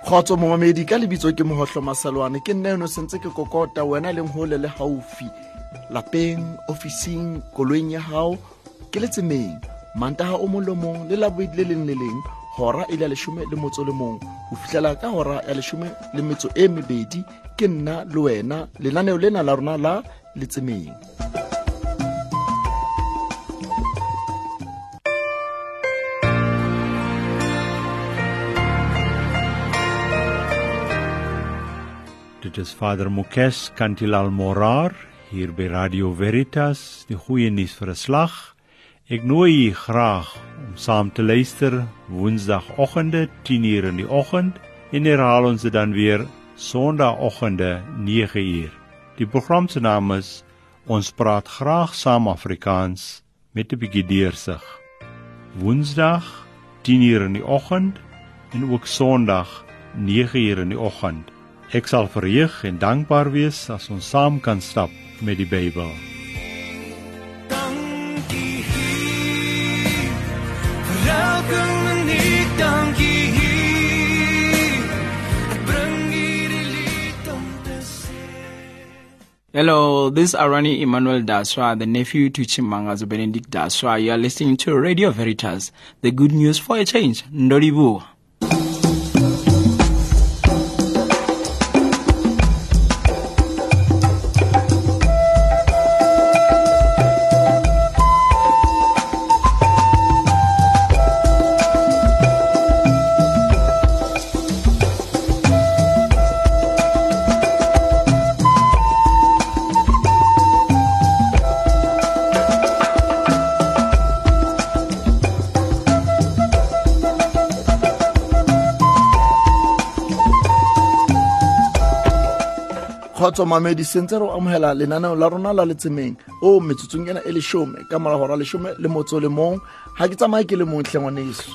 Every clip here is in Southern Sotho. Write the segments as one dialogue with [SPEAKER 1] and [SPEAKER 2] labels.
[SPEAKER 1] Kgotso momamedi, ka lebitso ke Mohohlo Masalwane. Ke nna eno sentse ke kokota wena leng hole le haufi, lapeng, ofising, koloing ya hao, ke letsemeng. Mantaha o mong le mong le Labobedi le leng le leng, hora e le ya 11 ho fihlela ka hora ya 12, ke nna le wena lenaneo lena la rona la Letsemeng.
[SPEAKER 2] Dit is Vader Mukesh Kantilal Morar hier by Radio Veritas, die goeie nuus vir 'n slag. Ek nooi u graag om saam te luister Woensdagoggende 10:00 in die oggend en herhaal ons dit dan weer Sondagoggende 9:00. Die program se naam is Ons praat graag saam Afrikaans met 'n bietjie deursig. Woensdag 10:00 in die oggend en ook Sondag 9:00 in die oggend. Ek sal verheug en dankbaar wees as ons saam kan stap met die Bybel.
[SPEAKER 3] Dankie Heer, vir elke minuut, dankie Heer. Ek bring hierdie lied om te sê.
[SPEAKER 4] Hello, this is Arani Emmanuel Daswa, the nephew to Chimangazo Benedict Daswa. You are listening to Radio Veritas, the good news for a change. Ndolibu.
[SPEAKER 1] Kgotso mamedi, sentse re amohela lenaneo la rona la Letsemeng o metsotsong ena e 10 ka mora hora 11. Ha ke tsamaye ke le mong hle ngwaneso.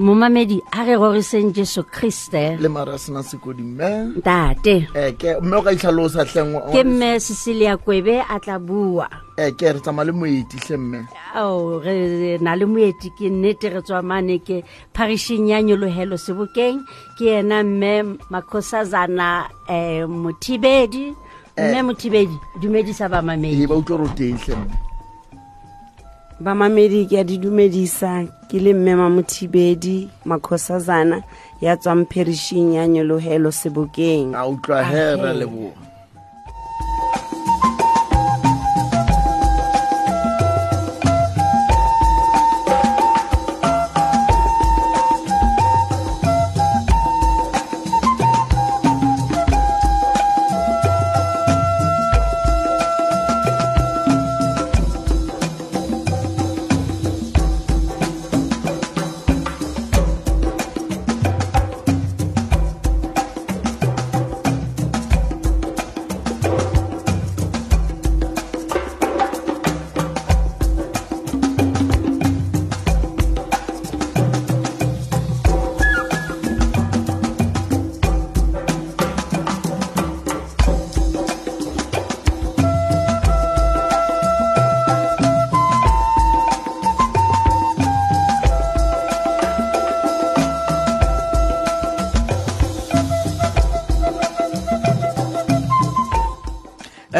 [SPEAKER 5] Momamedi, ha re roriseng Jesu Kriste.
[SPEAKER 1] Le mara sena sekodi mme.
[SPEAKER 5] Ntate.
[SPEAKER 1] Ke mme o ka itlhalosa hle ngwaneso.
[SPEAKER 5] Ke mme Cecilia Kwebe a tla bua.
[SPEAKER 1] Ke re tsamaya le moeti hle mme.
[SPEAKER 5] Ao, re na le moeti, ke nnete re tswa mane ke parishing ya Nyolohelo Sebokeng, ke yena mme Makhosazana Mothibedi. Mme Mothibedi, dumedisa bamamedi.
[SPEAKER 1] Ba utlwa re teng hle mme.
[SPEAKER 6] Bamamedi ke a di dumedisa, ke le mme Mamothibedi Makhosazana ya tswang parishing ya Nyolohelo Sebokeng.
[SPEAKER 1] A utlwa he, re leboha.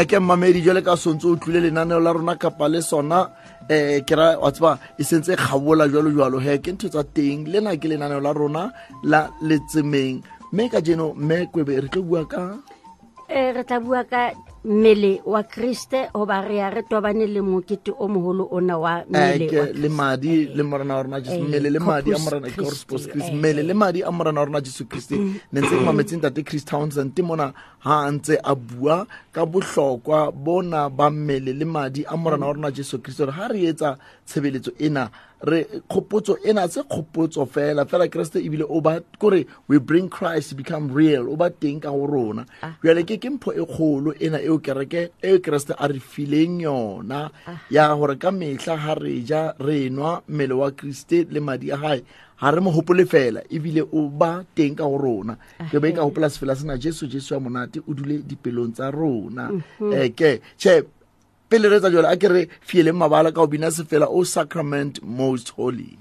[SPEAKER 1] Ke mmamedi, jwale ka sontso o tlile lenaneo la rona kapa le sona, ke ra wa tseba e sentse e kgabola jwalo jwalo he, ke ntho tsa teng. Lena ke lenaneo la rona la Letsemeng, mme kajeno mme Kwebe re tlo bua ka
[SPEAKER 5] re tla bua ka mmele wa Kriste, hoba re ya re tobane le mokete o moholo ona wa mmele wa
[SPEAKER 1] le madi le morena wa rona Jesu, mmele le madi a morena Corpus Christi, mmele le madi a morena wa rona Jesu Kriste. Ne ntse ke mametse ntate Chris Townsend mona ha ntse a bua ka bohlokwa bona ba mmele le madi a morena wa rona Jesu Kriste, hore ha re etsa tshebeletso ena, re khopotso ena se khopotso fela fela Kriste ebile o ba kore we bring Christ to become real, o ba teng ka ho rona. Jwale ke mpho e kgolo ena eo kereke e Kriste a re fileng yona, ya hore ka mehla ha re ja re nwa mmele wa Kriste le madi a hae, ha re mo hopole fela ebile o ba teng ka ho rona. Ke be ka hopola sefela sena, Jesu Jesu wa monate o dule dipelong tsa rona. Ke che pele re tsa jwale a ke re fieleng mabala ka ho bina sefela O Sacrament Most Holy.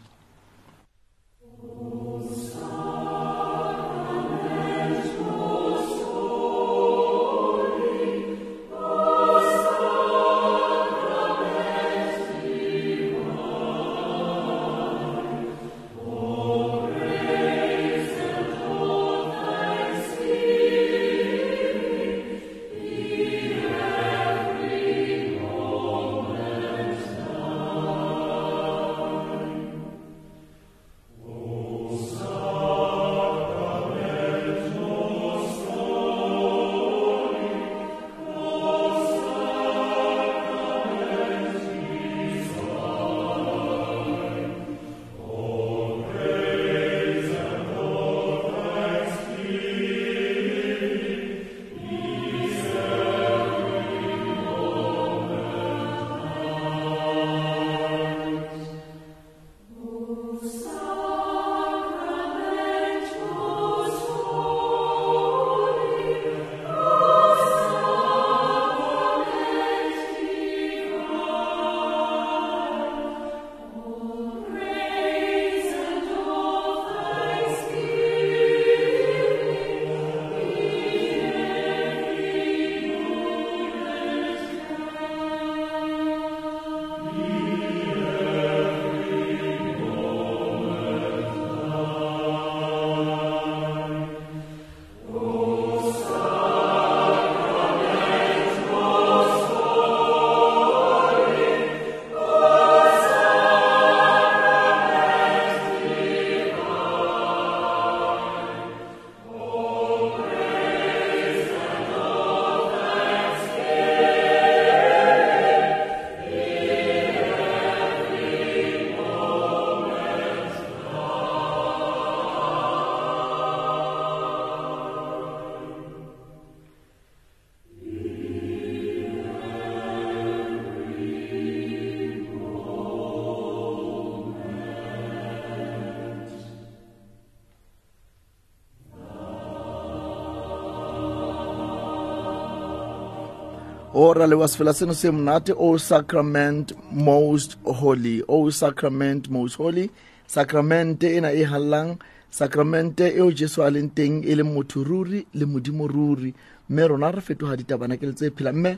[SPEAKER 1] O ra leboha sefela seno se monate, O Sacrament Most Holy, O Sacrament Most Holy. Sacramente ena e hallang, sacramente eo Jesu a leng teng e leng motho ruri le modimo ruri, mme rona re fetoha ditabanakele tse phelang. Mme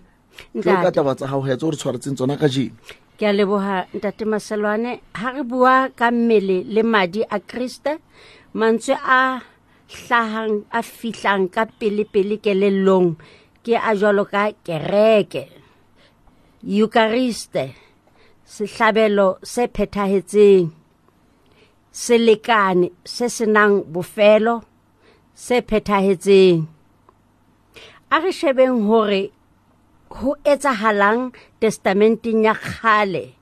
[SPEAKER 1] tlo ka taba tsa hao he tse o re tshwaretseng tsona kajeno.
[SPEAKER 5] Ke a leboha ntate Maselwane. Ha re bua ka mmele le madi a Kriste, mantswe a hlahang a fihlang ka pele-pele kelellong ke a jwalo ka kereke, Eucharist, sehlabelo se phethahetseng, selekane se senang bofelo se phethahetseng. A re shebeng hore ho etsahalang testamenteng ya kgale,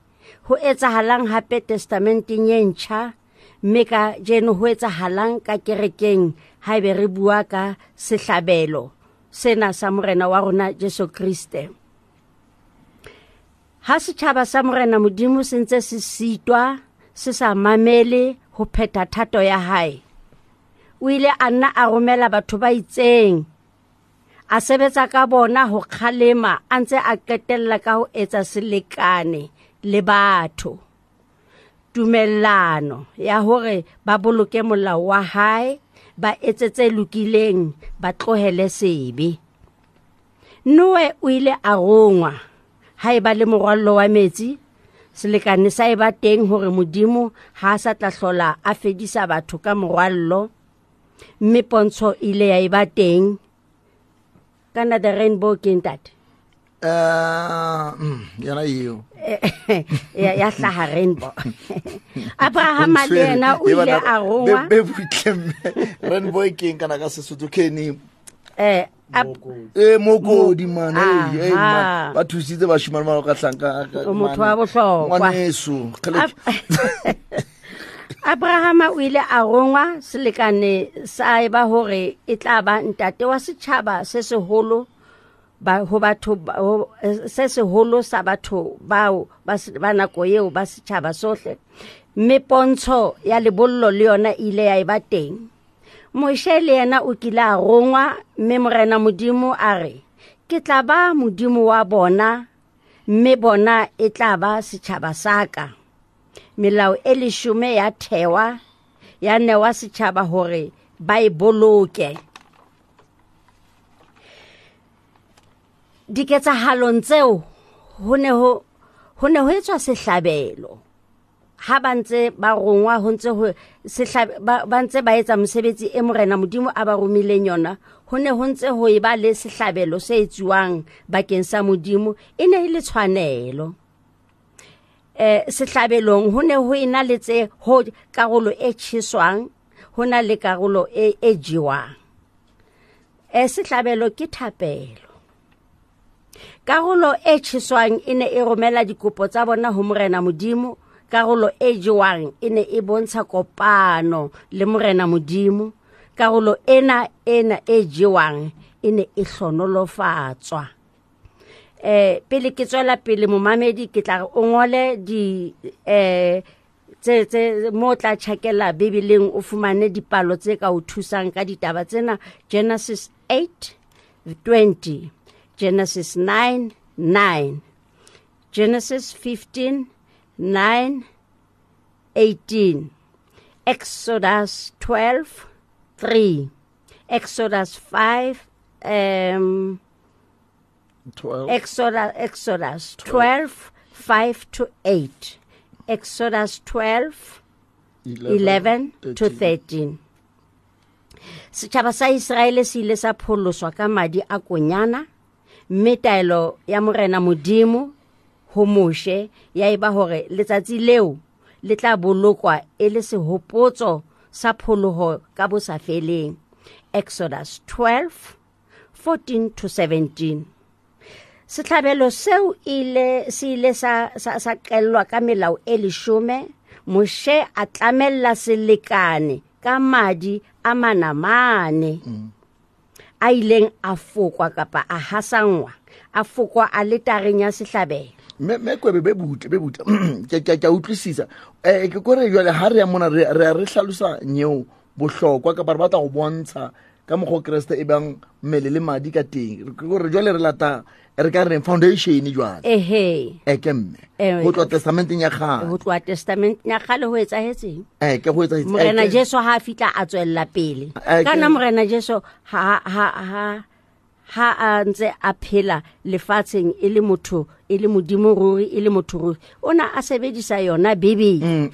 [SPEAKER 5] ho etsahalang hape testamenteng e ntjha, mme ka jeno ho etsahalang ka kerekeng haebe re bua ka sehlabelo sena sa Morena wa rona Jesu Kriste. Ha setjhaba sa Morena Modimo se ntse se sitwa, se sa mamele ho phetha thato ya hae, o ile a nna a romela batho ba itseng, a sebetsa ka bona ho kgalema, a ntse a qetella ka ho etsa selekane le batho, tumellano ya hore ba boloke molao wa hae, ba etse tse lokileng, ba tlohele sebe. Noe o ile a rongwa ha eba le morwallo wa metsi, selekane sa eba teng hore Modimo ha a sa tla hlola a fedisa batho ka morwallo, mme pontsho ile ya eba teng. Kana the rainbow ke ntate?
[SPEAKER 1] Yona eo.
[SPEAKER 5] Ya hlaha rainbow. Abraham le yena o ile a rongwa.
[SPEAKER 1] Be butle mme. Rainbow ke eng kana ka Sesotho ke eng? Mokodi man, man. Ba thusitse bashimane ba ka hlanka
[SPEAKER 5] O motho wa bohlokwa.
[SPEAKER 1] Ngwaneso, kgele.
[SPEAKER 5] Abraham o ile a rongwa, selekane sa eba hore e tla ba ntate wa setjhaba se seholo ba ho batho ba, ho, se seholo sa batho bao ba se, ba nako eo ba setjhaba sohle. Mme pontsho ya lebollo le yona e ile ya eba teng. Moshe le yena o kile a rongwa, mme Morena Modimo a re, ke tla ba Modimo wa bona, mme bona e tla ba setjhaba sa ka. Melao e leshome ya thewa, ya newa setjhaba hore ba e boloke. Diketsahalong tseo ho ne ho etswa sehlabelo. Ha ba ntse ba rongwa, ho ntse ho ba ntse ba etsa mosebetsi e Morena Modimo a ba romileng yona, ho ne ho ntse ho eba le sehlabelo se etsuwang bakeng sa Modimo, e ne e le tshwanelo. Sehlabelong ho ne ho ena le tse ho karolo e tjheswang, ho na le karolo e jewang. Sehlabelo ke thapelo. Karolo e tjheswang e ne e romela dikopo tsa bona ho Morena Modimo, karolo e jewang e ne e bontsha kopano le Morena Modimo, karolo ena e jewang e ne e hlonolofatswa. Pele ke tswela pele momamedi, ke tla re o ngole di, tse mo tla tjhakela Bibeleng o fumane dipalo tse ka o thusang ka ditaba tsena. Genesis 8:20, Genesis 9:9, Genesis 15:9-18, Exodus 12:3, Exodus 5,
[SPEAKER 1] 12.
[SPEAKER 5] Exodus 12, 5 to 8, Exodus 12, 11 to 13. Setjhaba sa Iseraele se ile sa pholoswa ka madi a konyana, mme taelo ya Morena Modimo ho Moshe ya eba hore letsatsi leo le tla bolokwa e le sehopotso sa pholoho ka bo sa feleng. Exodus 12, 14 to 17. Sehlabelo seo se ile sa qellwa ka melao e leshome. Moshe a tlamella selekane ka madi a manamane a ileng a fokwa kapa a hasangwa, a fokwa aletareng ya sehlabelo.
[SPEAKER 1] Me kwebe be butle, be butle. Ke a utlwisisa. Ke kore jwale ha re ya mona, re a re hlalosa nyeo bohlokwa kapa re batla ho bontsha Ka mokgwa o Kreste e bang mmele le madi ka teng. Ke gore jwale re lata re ka reng foundation jwale.
[SPEAKER 5] Ehe.
[SPEAKER 1] Eke mme. Ho tloha testamenteng ya kgale.
[SPEAKER 5] Ho tloha testamenteng ya kgale ho etsahetseng?
[SPEAKER 1] Eke ho etsahetse.
[SPEAKER 5] Morena Jesu ha a fihla a tswella pele. Kana Morena Jesu ha a ntse a phela lefatsheng e le motho, e le modimo ruri, e le motho ruri, o na a sebedisa yona Bibele,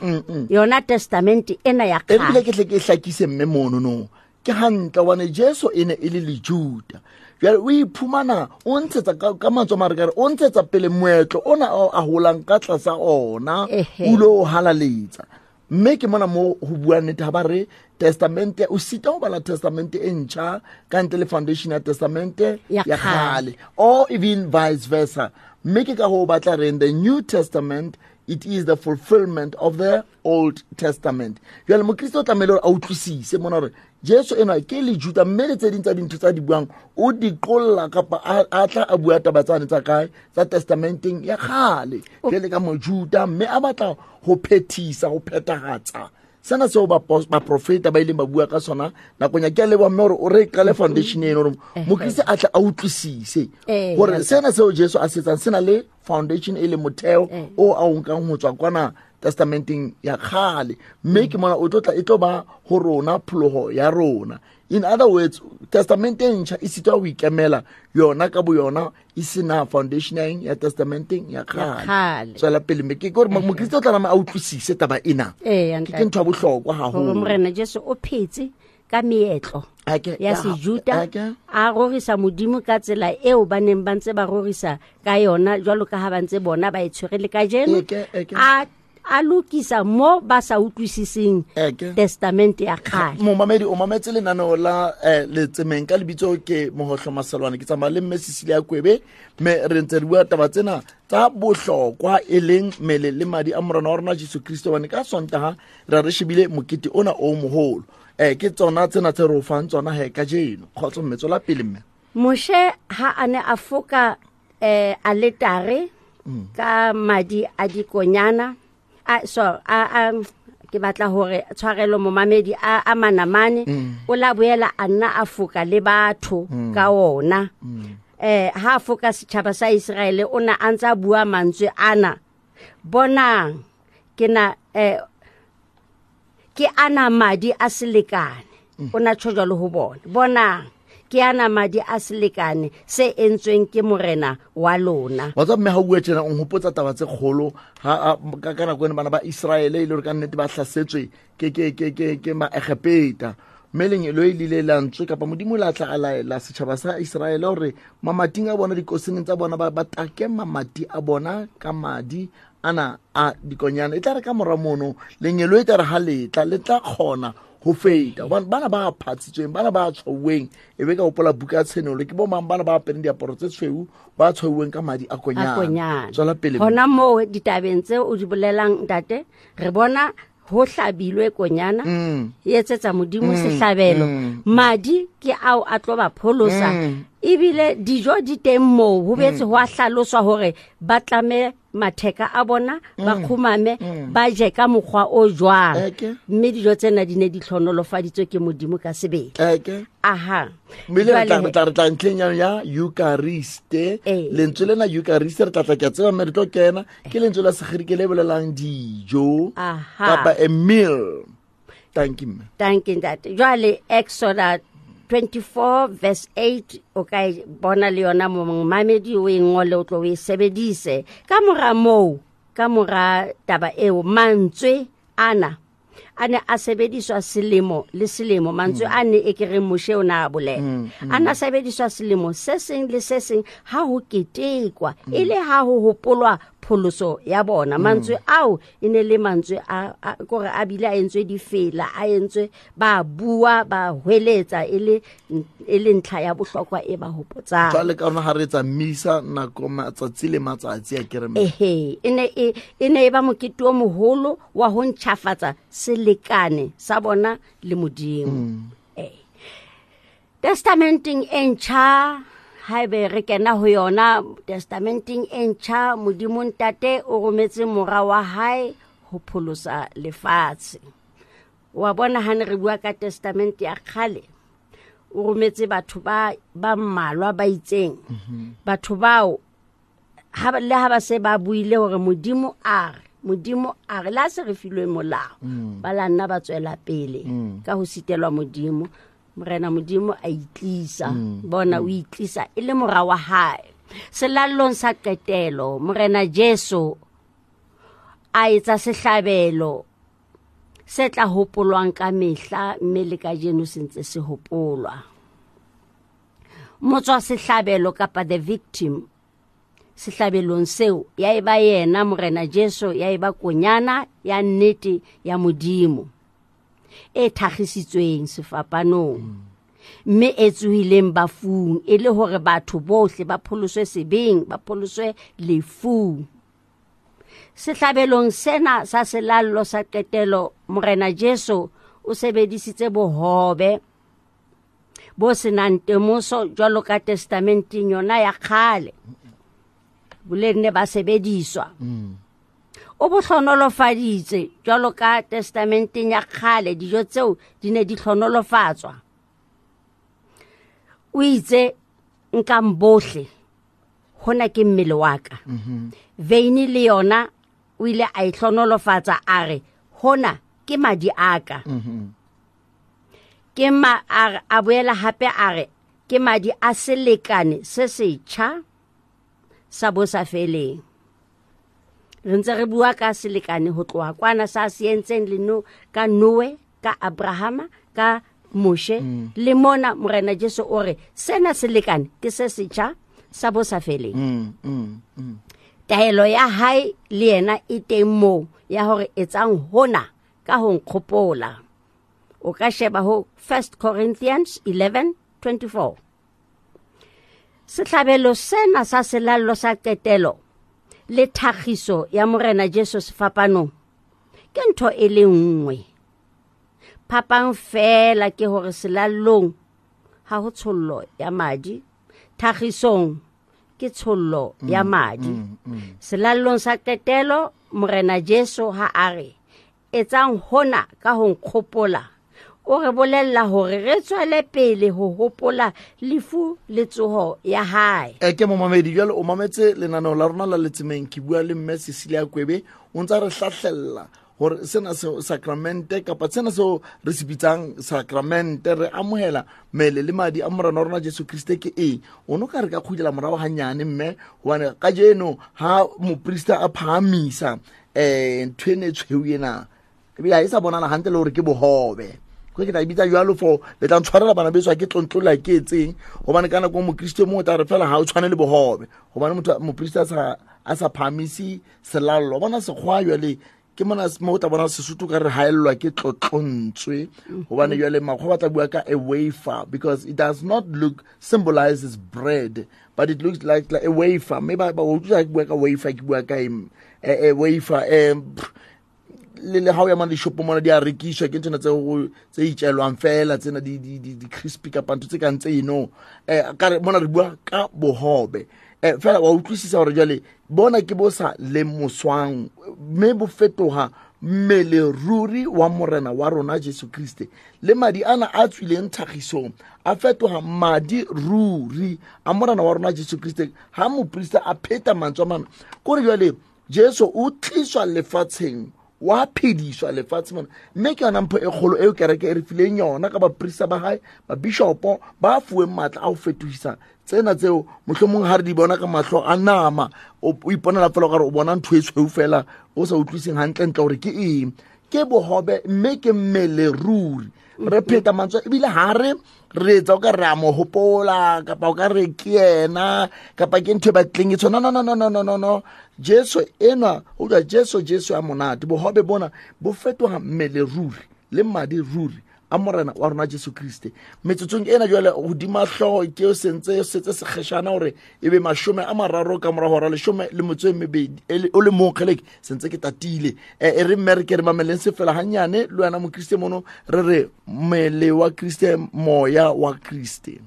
[SPEAKER 5] yona testament ena ya kgale.
[SPEAKER 1] Ebile ke tle ke hlakise mme mono no. Ke hantle hobane Jesu e ne e le Lejuda. Jwale o iphumana o ntshetsa ka mantswe a mare ka re o ntshetsa pele moetlo ona a holang ka tlasa ona, o lo halaletsa. Mme ke mona mo ho bua nnete ha ba re testamente, o sita ho bala testamente e ntjha ka ntle le foundation ya testamente ya kgale, or even vice versa. Mme ke ka ho batla reng the New Testament, it is the fulfillment of the Old Testament. Jwale Mokristo o tlamehile hore a utlwisise mona hore Jesu enwa ke Lejuda, mme le tse ding tsa dintho tsa di buang o di qolla kapa a tla a bua taba tsane tsa kae tsa testamenteng ya kgale jwale ka Mojuda, mme a batla ho phethisa, ho phethahatsa sena seo baprofeta ba ileng ba bua ka sona nakong ya. Ke a leboha mme hore o re qale foundation eno hore Mokriste a tle a utlwisise hore sena seo Jesu a se etsang se na le foundation e le motheo o a o nkang ho tswa kwana testamenteng ya kgale, mme ke mona o tlo tla e tlo ba ho rona pholoho ya rona. In other words, testamenteng ntjha e sitwa ho ikemela yona ka boyona e sena foundation ya testamenteng ya kgale. Tswela pele mme ke gore Mokriste o tla nama a utlwisise taba ena. Ke ntho ya bohlokwa haholo.
[SPEAKER 5] Hore Morena Jesu o phetse ka meetlo ya Sejuda, a rorisa Modimo ka tsela eo ba neng ba ntse ba rorisa ka yona, jwalo ka ha ba ntse bona ba e tshwere le kajeno. A lokisa mo ba sa utlwisiseng testament ya kgale.
[SPEAKER 1] Momamedi o mametse lenaneo la letsemeng ka lebitso ke Mohohlo Masalwane, ke tsamaya le mme Cecilia Kwebe, mme re ntse re bua taba tsena tsa bohlokwa e leng mmele le madi a Morena wa rona Jesu Kristo, hobane ka Sontaha ra re shebile mokete ona o moholo. Ke tsona tsena tse re o fang tsona he kajeno. Kgotso mme, tswela pele mme.
[SPEAKER 5] Moshe ha a ne a foka aletare ka madi a dikonyana, ke batla hore tshwarelo momamedi a manamane, o la boela a nna a foka le batho ka ona. Ha a foka setjhaba sa Iseraele, o na a ntsa bua mantswe ana: bonang ke na ke ana madi a selekane. O na tjho jwalo ho bona: bonang ke ana madi a selekane se entsweng ke Morena wa lona.
[SPEAKER 1] Wa tseba mme ha o bua tjena o nhopotsa taba tse kgolo ha ka nako ena bana ba Iseraele e le hore ka nnete ba hlasetswe ke Maegepeta. Mme lengeloi le ile la ntswe kapa Modimo la tla a laela setjhaba sa Iseraele hore mamating a bona, dikoseneng tsa bona, ba take mamati a bona ka madi ana a dikonyana. E tla re ka mora mono lengeloi e tla re ha letla le tla kgona ho feta. Hobane bana ba phatsitsweng, bana ba tshwauweng, e be ka hopola buka ya Tshenolo, ke bo mang bana ba apereng diaparo tse tshweu, ba tshwauweng ka madi a konyana. Tswela pele.
[SPEAKER 5] Hona moo ditabeng tse o di bolelang ntate, re bona ho hlabilwe konyana, e etsetsa Modimo sehlabelo. Madi ke ao a tlo ba pholosa. Ebile dijo di teng moo, ho betse ho a hlaloswa hore ba tlame matheka a bona, ba kgumame, ba je ka mokgwa o jwang. Mme dijo tsena di ne di hlonolofaditswe ke Modimo ka sebele. Aha.
[SPEAKER 1] Mme le re tla ntlheng ya Eucharist. Lentswe lena Eucharist re tla tla ke a tseba mme re tlo kena, ke lentswe la Segerike le bolelang dijo kapa a meal. Thank you mme.
[SPEAKER 5] Thank you ntate. Jwale Exodus 24 verse 8 o ka e bona le yona momamedi, o e ngole o tlo o e sebedise. Ka mora moo, ka mora taba eo, mantswe ana a ne a sebediswa selemo le selemo. Mantswe a ne e ke reng Moshe o na a bolela, a ne a sebediswa selemo se seng le se seng ha ho ketekwa, e le ha ho hopolwa pholoso ya bona. Mantswe ao e ne le mantswe a kore a bile a entswe difela, a entswe ba bua, ba hweletsa, e le ntlha ya bohlokwa e ba hopotsang.
[SPEAKER 1] Jwale ka rona ha re etsa misa nako matsatsi le matsatsi a kereme.
[SPEAKER 5] Ehe, e ne e ba mokete o moholo wa ho ntjhafatsa selekane sa bona le Modimo. Testamenteng e ntjha, haebe re kena ho yona testamenteng e ntjha, Modimo Ntate o rometse mora wa hae ho pholosa lefatshe. Wa bona ha ne re bua ka testament ya kgale, O rometse batho ba mmalwa ba itseng. Batho bao le ha ba se ba buile hore Modimo a re la se re filwe molao, ba la nna ba tswela pele ka ho sitelwa Modimo. Morena Modimo a itlisa, bona o itlisa e le mora wa hae. Selallong sa qetelo Morena Jesu a etsa sehlabelo se tla hopolwang ka mehla, mme le kajeno se ntse se hopolwa. Motswa sehlabelo kapa the victim sehlabelong seo ya eba yena Morena Jesu, ya eba konyana ya nnete ya Modimo e thakgisitsweng sefapanong, mme e tsohileng bafung, e le hore batho bohle ba pholoswe sebeng, ba pholoswe lefung. Sehlabelong sena sa selallo sa qetelo, Morena Jesu o sebedisitse bohobe bo senang temoso jwalo ka testamenteng yona ya kgale, boleng ne ba sebediswa. O bo hlonolofaditse jwalo ka testamenteng ya kgale, dijo tseo di ne di hlonolofatswa. O itse nkang bohle, hona ke mmele wa ka. Veini le yona o ile a e hlonolofatsa, a re hona ke madi a ka. Ke a boela hape a re ke madi a selekane se setjha sa bo sa feleng. Re ntse re bua ka selekane ho tloha kwana sa se entseng le no ka Noe, ka Abrahama, ka Moshe, le mona Morena Jesu o re sena selekane ke se setjha sa bo sa feleng. Taelo ya hae le yena e teng moo ya hore etsang hona ka ho nkgopola. O ka sheba ho 1 Corinthians 11:24. Sehlabelo sena sa selallo sa qetelo le thakgiso ya Morena Jesu sefapanong ke ntho e le nngwe. Phapang fela ke hore selallong ha ho tshollo ya madi, thakgisong ke tshollo ya madi. Selallong sa qetelo Morena Jesu ha a re etsang hona ka ho nkgopola, o re bolella hore re tswele pele ho hopola lefu le tsoho ya hae.
[SPEAKER 1] Ke momamedi jwale o mametse lenaneo la rona la Letsemeng. Ke bua le mme Cecilia Kwebe, o ntsa re hlahlella hore sena se sacramente kapa sena seo re se bitsang sacramente, re amohela mmele le madi a Morena wa rona Jesu Kriste ke eng. O no ka re ka kgutlela morao hanyane mme, hobane kajeno ha moprista a phahamisa ntho ena e tshweu ena, ebile ha e sa bonala hantle le hore ke bohobe. Ke tla e bitsa jwalo for le tla ntshwarela bana beso, ke tlontlola ke etseng, hobane ka nako mokriste mong o tla re fela ha o tshwane le bohobe, hobane motho moprista a sa phahamisi selallo. Bona sekgwa jwale ke mona mo o tla bona Sesotho ka re haellwa ke tlotlontswe, hobane jwale makgwa ba tla bua ka a wafer, because it does not look symbolizes bread, but it looks like a wafer. Mme ba utlwa ke bua ka wafer, ke bua ka a wafer. Le ha o ya mane dishopong mona di a rekiswa, ke nthona tse itjelwang fela tsena di crispy kapa ntho tse kang tse eno. Ka re mona re bua ka bohobe. Fela wa utlwisisa hore jwale bona ke bo sa lemoswang, mme bo fetoha mmele ruri wa Morena wa rona Jesu Kriste. Le madi ana a tswileng thakgisong a fetoha madi ruri a Morena wa rona Jesu Kriste. Ha moprista a pheta mantswe a mana, kore jwale Jesu o tliswa lefatsheng, wa phediswa lefatshe mona, mme ke yona mpho e kgolo eo kereke e re fileng yona ka baprista ba hae, babishopo ba fuweng matla a ho fetohisa tsena tseo mohlomong ha re di bona ka mahlo a nama, o iponela fela o ka re o bona ntho e tshweu fela, o sa utlwiseng hantle-ntle hore ke eng. Ke bohobe mme ke mmele ruri. Re pheta mantswe ebile ha re re etsa o ka re a mo hopola kapa o ka re ke yena kapa ke ntho e batleng e tshwana. No, no, no, no, no, no, no. Jesu enwa o utlwa Jesu, Jesu ya monate. Bohobe bona bo fetoha mmele ruri le madi ruri a Morena wa rona Jesu Kriste. Metsotsong ena jwale hodima hlooho ke o sentse setse sekgeshana hore ebe 30 ka mora hora 12 o le mong kgeleke sentse ke tatile. E re mme re ke re mameleng se fela hanyane le wena mokriste mono, re re mmele wa Kriste, moya wa Kriste.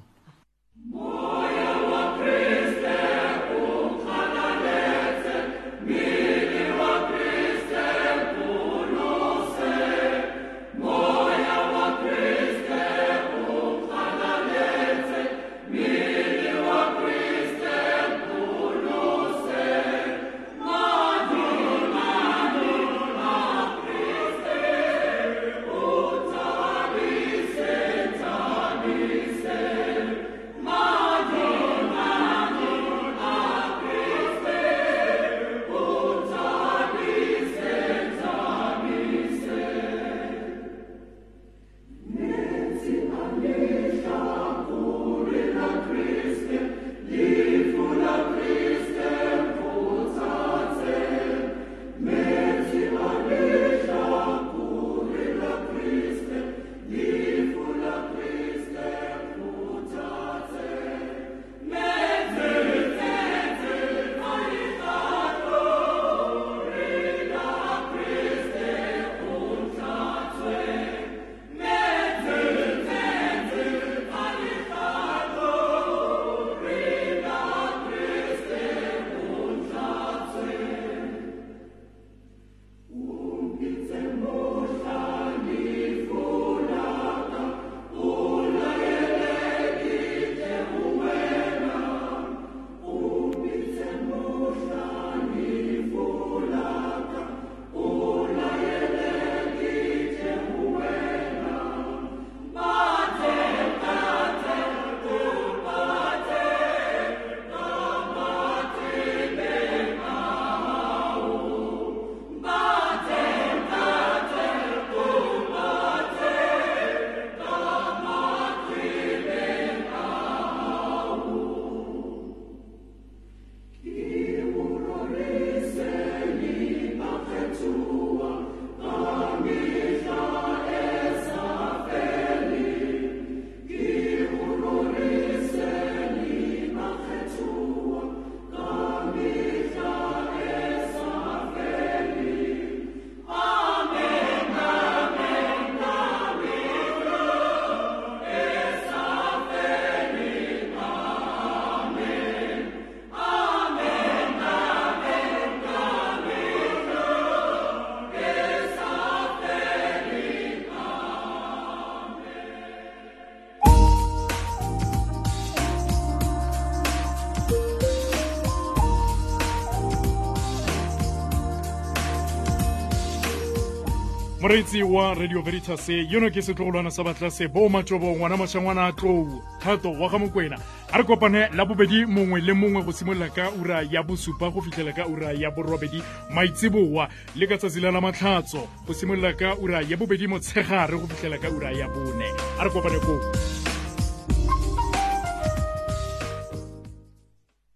[SPEAKER 7] Moreetsi wa Radio Veritas, yono ke setlogolwana sa batlase bo matšobo ngwana mašangwana a tlou thato wa ga Mokwena. A re kopane la bobedi mongwe le mongwe go simolola ka ura ya 7 go fitlhela ka ura ya 8 maitseboa, le ka tsatsi la la matlhatso go simolola ka ura ya 2 motshegare go fitlhela ka ura ya 4. A re kopane koo.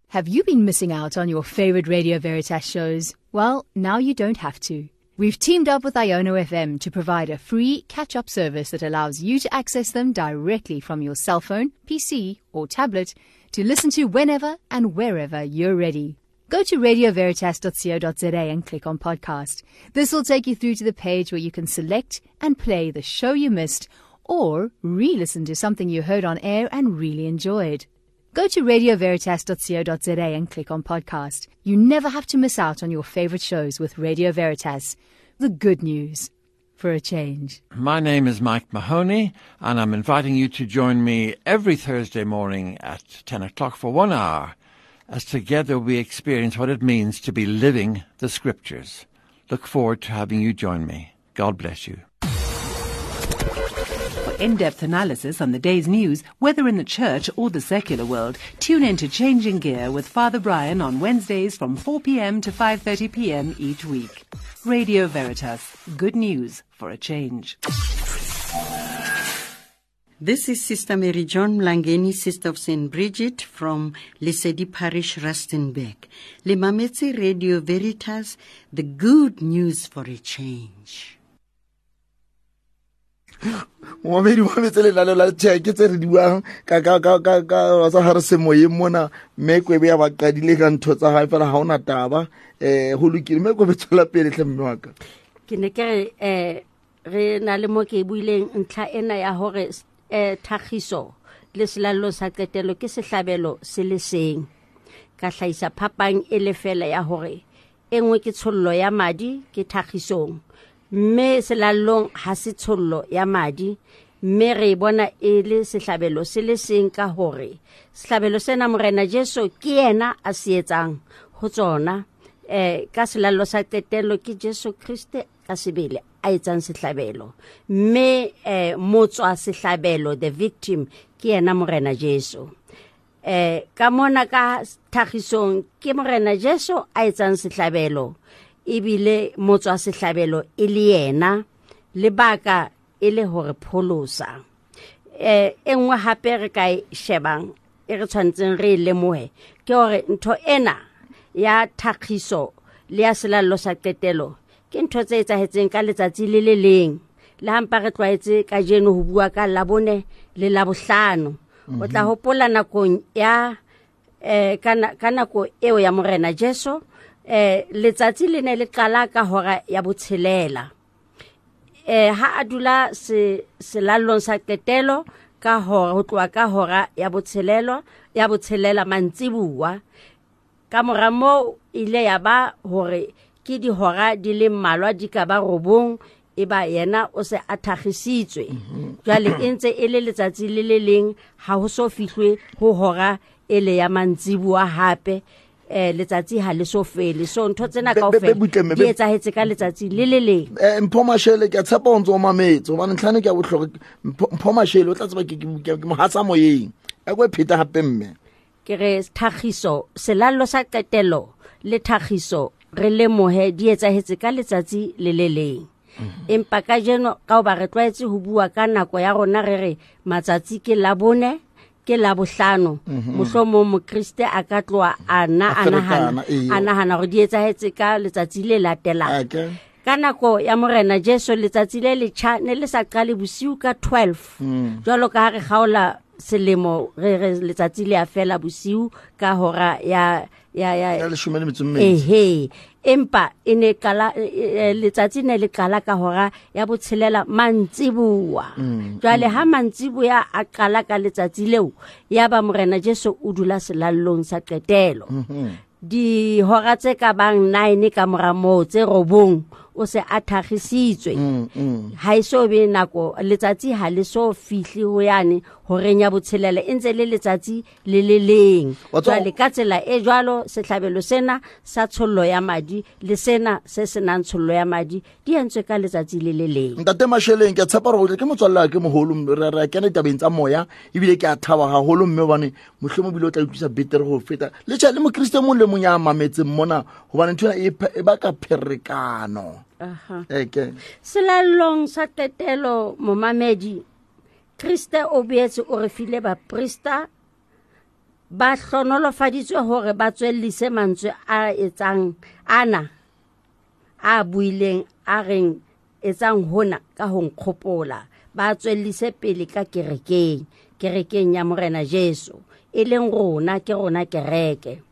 [SPEAKER 8] Have you been missing out on your favorite Radio Veritas shows? Well, now you don't have to. We've teamed up with Iono FM to provide a free catch-up service that allows you to access them directly from your cell phone, PC or tablet to listen to whenever and wherever you're ready. Go to radioveritas.co.za and click on podcast. This will take you through to the page where you can select and play the show you missed or re-listen to something you heard on air and really enjoyed. Go to radioveritas.co.za and click on podcast. You never have to miss out on your favorite shows with Radio Veritas. The good news for a change.
[SPEAKER 9] My name is Mike Mahoney, and I'm inviting you to join me every Thursday morning at 10 o'clock for 1 hour, as together we experience what it means to be living the Scriptures. Look forward to having you join me. God bless you.
[SPEAKER 10] For in-depth analysis on the day's news, whether in the church or the secular world, tune in to Changing Gear with Father Brian on Wednesdays from 4 p.m. to 5:30 p.m. each week. Radio Veritas, good news for a change.
[SPEAKER 11] This is Sister Mary John Mlangeni, Sister of St. Bridget from Lesedi Parish, Rustenburg. Le mametse Radio Veritas, the good news for a change.
[SPEAKER 1] Momamedi wa metse lenaneo la tjhe tse re di buang ka tsa hare semoyeng mona, mme Kwebe ya ba qadile ka ntho tsa hae fela ha ona taba. Ho lokile, mme Kwebe tswela pele hle mme wa ka.
[SPEAKER 5] Ke ne ke re re na le mo ke buileng ntlha ena ya hore thagiso le selallo sa qetelo ke sehlabelo se le seng. Ka hlahisa phapang e le fela ya hore e nngwe ke tshollo ya madi ke thagisong, mme selallong ha se tshollo ya madi, mme re bona e le sehlabelo se le seng ka hore sehlabelo sena Morena Jesu ke yena a se etsang ho tsona. Ka selallo sa qetelo ke Jesu Kriste ka sebele a etsang sehlabelo, mme motswa sehlabelo, the victim, ke yena Morena Jesu. Ka mona ka thagisong ke Morena Jesu a etsang sehlabelo, ebile motswa sehlabelo e le yena, lebaka e le hore pholosa. E nngwe hape re ka e shebang e re tshwanetseng re e lemohe ke hore ntho ena ya thagiso le ya selallo sa qetelo ke ntho tse etsahetseng ka letsatsi le le leng. Le hampa re tlwaetse kajeno ho bua ka Labone le Labohlano. O tla hopola nakong ya ka nako eo ya Morena Jesu, letsatsi le ne le qala ka hora ya 6. Ha a dula selallong sa qetelo ka hora, ho tloha ka hora ya 6 mantsibuwa. Ka mora moo ile ya ba hore ke dihora di le mmalwa di ka ba 9, e ba yena o se a thagisitswe. Jwale e ntse e le letsatsi le le leng, ha ho so fihlwe ho hora e le ya mantsibuwa hape. Letsatsi ha le so fele. So ntho tsena kaofela di etsahetse ka letsatsi le le leng.
[SPEAKER 1] Mpho Mashele, ke a tshepa o ntse o mametse hobane ntlhane ke a bohlokwa. Mpho Mashele o tla tseba ke mohatsa moyeng. A ko pheta hape mme.
[SPEAKER 5] Ke re thagiso, selallo sa qetelo le thagiso re lemohe di etsahetse ka letsatsi le le leng. Empa kajeno ka hoba re tlwaetse ho bua ka nako ya rona re re matsatsi ke Labone ke Labohlano, mohlomong mokriste a ka tloha a nahana hore di etsahetse ka letsatsi le latelang. Ka nako ya Morena Jesu letsatsi le letjha ne le sa qale bosiu ka 12. Jwalo ka ha re kgaola selemo re re letsatsi le a fela bosiu ka hora ya
[SPEAKER 1] 12.
[SPEAKER 5] Ehe, empa e ne qala letsatsi ne le qala ka hora ya 6 mantsibuwa. Jwale ha mantsibuya a qala ka letsatsi leo, ya ba Morena Jesu o dula selallong sa qetelo. Dihora tse ka bang 9 ka mora moo tse 9 o se a thakgisitswe. Ha e so be nako, letsatsi ha le so fihle ho yane horeng ya botshelela, e ntse le letsatsi le le leng.
[SPEAKER 1] Wa tseba-
[SPEAKER 5] Jwale ka tsela e jwalo sehlabelo sena sa tshollo ya madi le sena se senang tshollo ya madi di entswe ka letsatsi le le leng.
[SPEAKER 1] Ntate Masheleng, ke a tshepa hore ke motswalle wa ke moholo, re a kena ditabeng tsa moya, ebile ke a thaba haholo mme hobane mohlomong ebile o tla utlwisa betere ho feta. Le tjhe, le mokriste mong le mong ya mametseng mona, hobane ntho ena e baka pherekano. Ke.
[SPEAKER 5] Selallong sa qetelo, momamedi, Kriste o boetse o re file baprista ba hlonolofaditswe hore ba tswellise mantswe a etsang ana a buileng a reng etsang hona ka ho nkgopola, ba tswellise pele ka kerekeng, kerekeng ya Morena Jesu, e leng rona, ke rona kereke.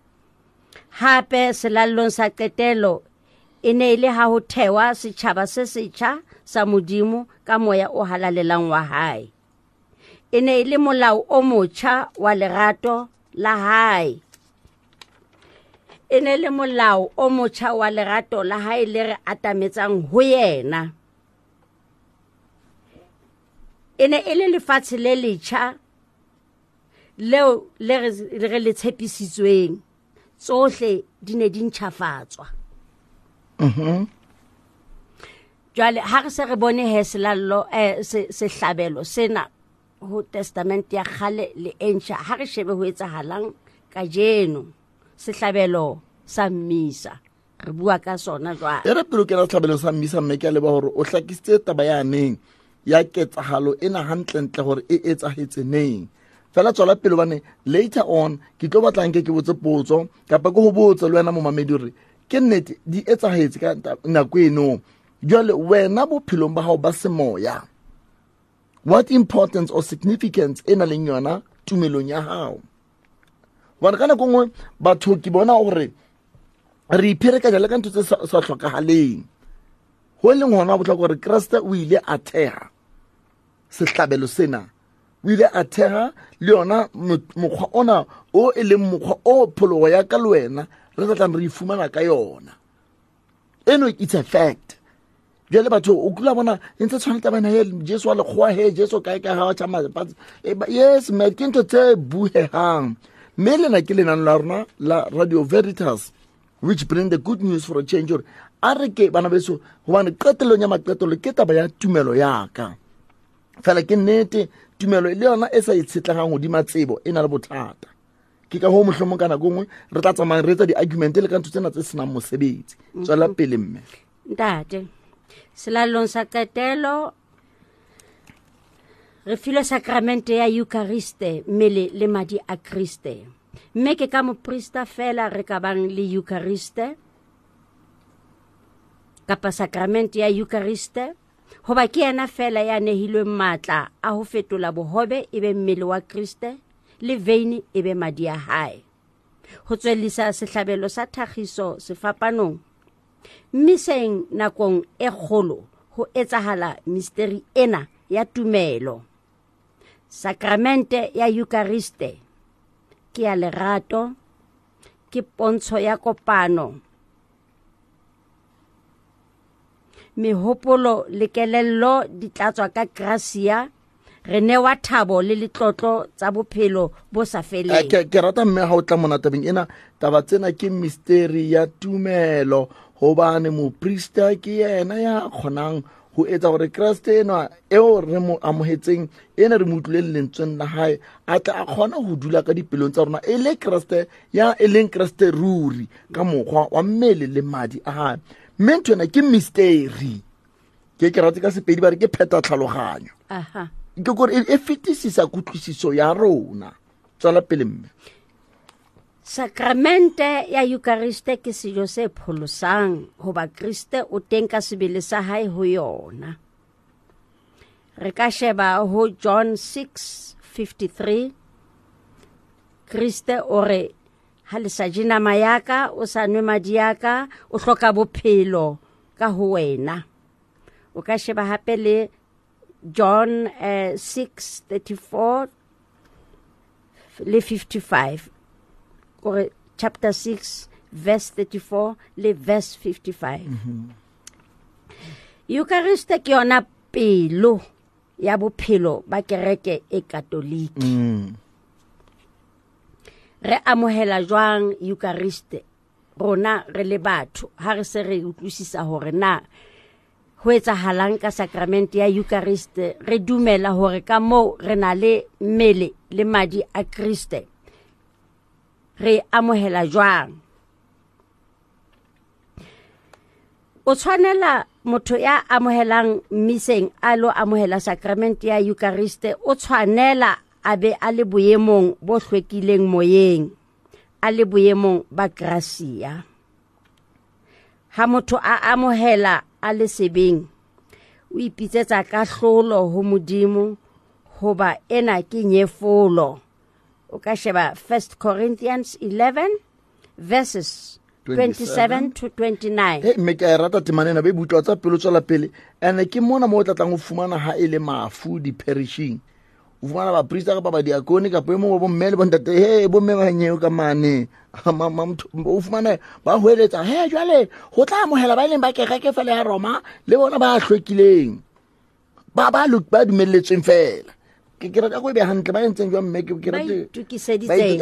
[SPEAKER 5] Hape selallong sa qetelo e ne e le ha ho thewa setjhaba se setjha sa Modimo ka moya o halalelang wa hae. E ne e le molao o motjha wa lerato la hae. E ne le molao o motjha wa lerato la hae le re atametsang ho yena. E ne e le lefatshe le letjha leo le re le tshepisitsweng. Tsohle di ne di ntjhafatswa. Jwale ha re se re bone he selallo, sehlabelo sena ho testament ya kgale le e ntjha, ha re shebe ho etsahalang kajeno. Sehlabelo sa mmisa, re bua ka sona jwale.
[SPEAKER 1] E re pele o kena sehlabelo sa mmisa, mme ke a leboha hore o hlakisitse taba ya neng ya ketsahalo ena hantlentle hore e etsahetse neng. Fela tswela pele hobane later on ke tlo batla nke ke botse potso kapa ke ho botse le wena momamedi hore ke nnete di etsahetse ka nako eno. Jwale wena bophelong ba hao ba semoya, what importance or significance e nang le yona tumelong ya hao? Hobane ka nako e nngwe batho ke bona hore re ipherekanya le ka ntho tse sa hlokahaleng. Ho leng hona bohlokwa hore Kreste o ile a theha sehlabelo sena, o ile a theha le yona mokgwa ona o e leng mokgwa o pholoho ya ka le wena re tla tlang re e fumana ka yona. Eno it's a fact. Jwale batho o kula bona e ntse tshwana taba ena, he, Jesu wa lekgowa, he, Jesu kae kae, ha wa tjha mafatshe. Yes, mme ke ntho tse buhehang. Mme lena ke lenane la rona la Radio Veritas, which bring the good news for a change. Hore a re ke bana beso, hobane qetellong ya maqetello ke taba ya tumelo ya ka. Fela ke nnete, tumelo le yona e sa itshetlehang hodima tsebo e na le bothata. Ke ka hoo mohlomong ka nako e nngwe re tla tsamaya re etsa di-argument le ka ntho tsena tse senang mosebetsi. Tswela pele mme.
[SPEAKER 5] Ntate, selallong sa qetelo re filwe sakramente ya Euchariste, mmele le madi a Kriste. Mme ke ka moprista fela re ka bang le Euchariste kapa sakramente ya Euchariste, hoba ke yena fela ya nehilweng matla a ho fetola bohobe e be mmele wa Kriste le veine e be madi a hae. Ho tswellisa sehlabelo sa thakgiso sefapanong, mmiseng nakong e kgolo ho etsahala misteri ena ya tumelo. Sakramente ya Euchariste ke ya lerato, ke pontsho ya kopano. Mehopolo le kelello di tlatswa ka gracia, re newa thabo le letlotlo tsa bophelo bo sa feleng.
[SPEAKER 1] Ke rata mme ha o tla mona tabeng ena, taba tsena ke misteri ya tumelo, hobane moprista ke yena ya kgonang ho etsa hore Kreste enwa eo re mo amohetseng, ena re mo utlwileng lentsweng la hae, a tle a kgone ho dula ka dipelong tsa rona e le Kreste ya e leng Kreste ruri ka mokgwa wa mmele le madi a hae. Mme ntho ena ke misteri. Ke ke rate ka Sepedi ba re ke pheta tlhaloganyo. Ke kore e fetisisa kutlwisiso ya rona. Tswela pele mme.
[SPEAKER 5] Sakramente ya Euchariste ke sejo se pholosang, hoba Kriste o teng ka sebele sa hae ho yona. Re ka sheba ho John 6:53. Kriste o re, ha le sa je nama ya ka, o sa nwe madi ya ka, o hloka bophelo ka ho wena. O ka sheba hape le John 6:34 le 55. Kore chapter 6 verse 34 le verse 55. Eucharist ke yona pelo ya bophelo ba kereke e katoliki. Re amohela jwang Eucharist rona re le batho ha re se re utlwisisa hore na ho etsahalang ka sakramente ya Eucharist? Re dumela hore ka moo re na le mmele le madi a Kriste. Re amohela jwang? O tshwanela motho ya amohelang mmiseng a lo amohela sakramente ya Eucharist, o tshwanela a be a le boemong bo hlwekileng moyeng, a le boemong ba gracia. Ha motho a amohela a le sebeng, o ipitsetsa kahlolo ho Modimo, hoba ena ke nyefolo. O ka sheba 1 Corinthians 11 verses 27 to 29.
[SPEAKER 1] Hey, mme ke a e rata temana ena, be butlwa tsa pelo tswela pele. Ene ke mona mo o tlatlang ho fumana ha e le mafu di-perishing. O fumana baprista kapa badiakone kapa e mongwe wa bomme le bontate, he bomme ba nyeo ka mane. O fumane ba hweletsa, he jwale ho tla amohela ba e leng ba kereke fela ya Roma le bona ba hlwekileng. Ba ba ba dumelletsweng fela. Ke rata go e be hantle ba entseng jwang mme ke
[SPEAKER 5] rata itokiseditseng.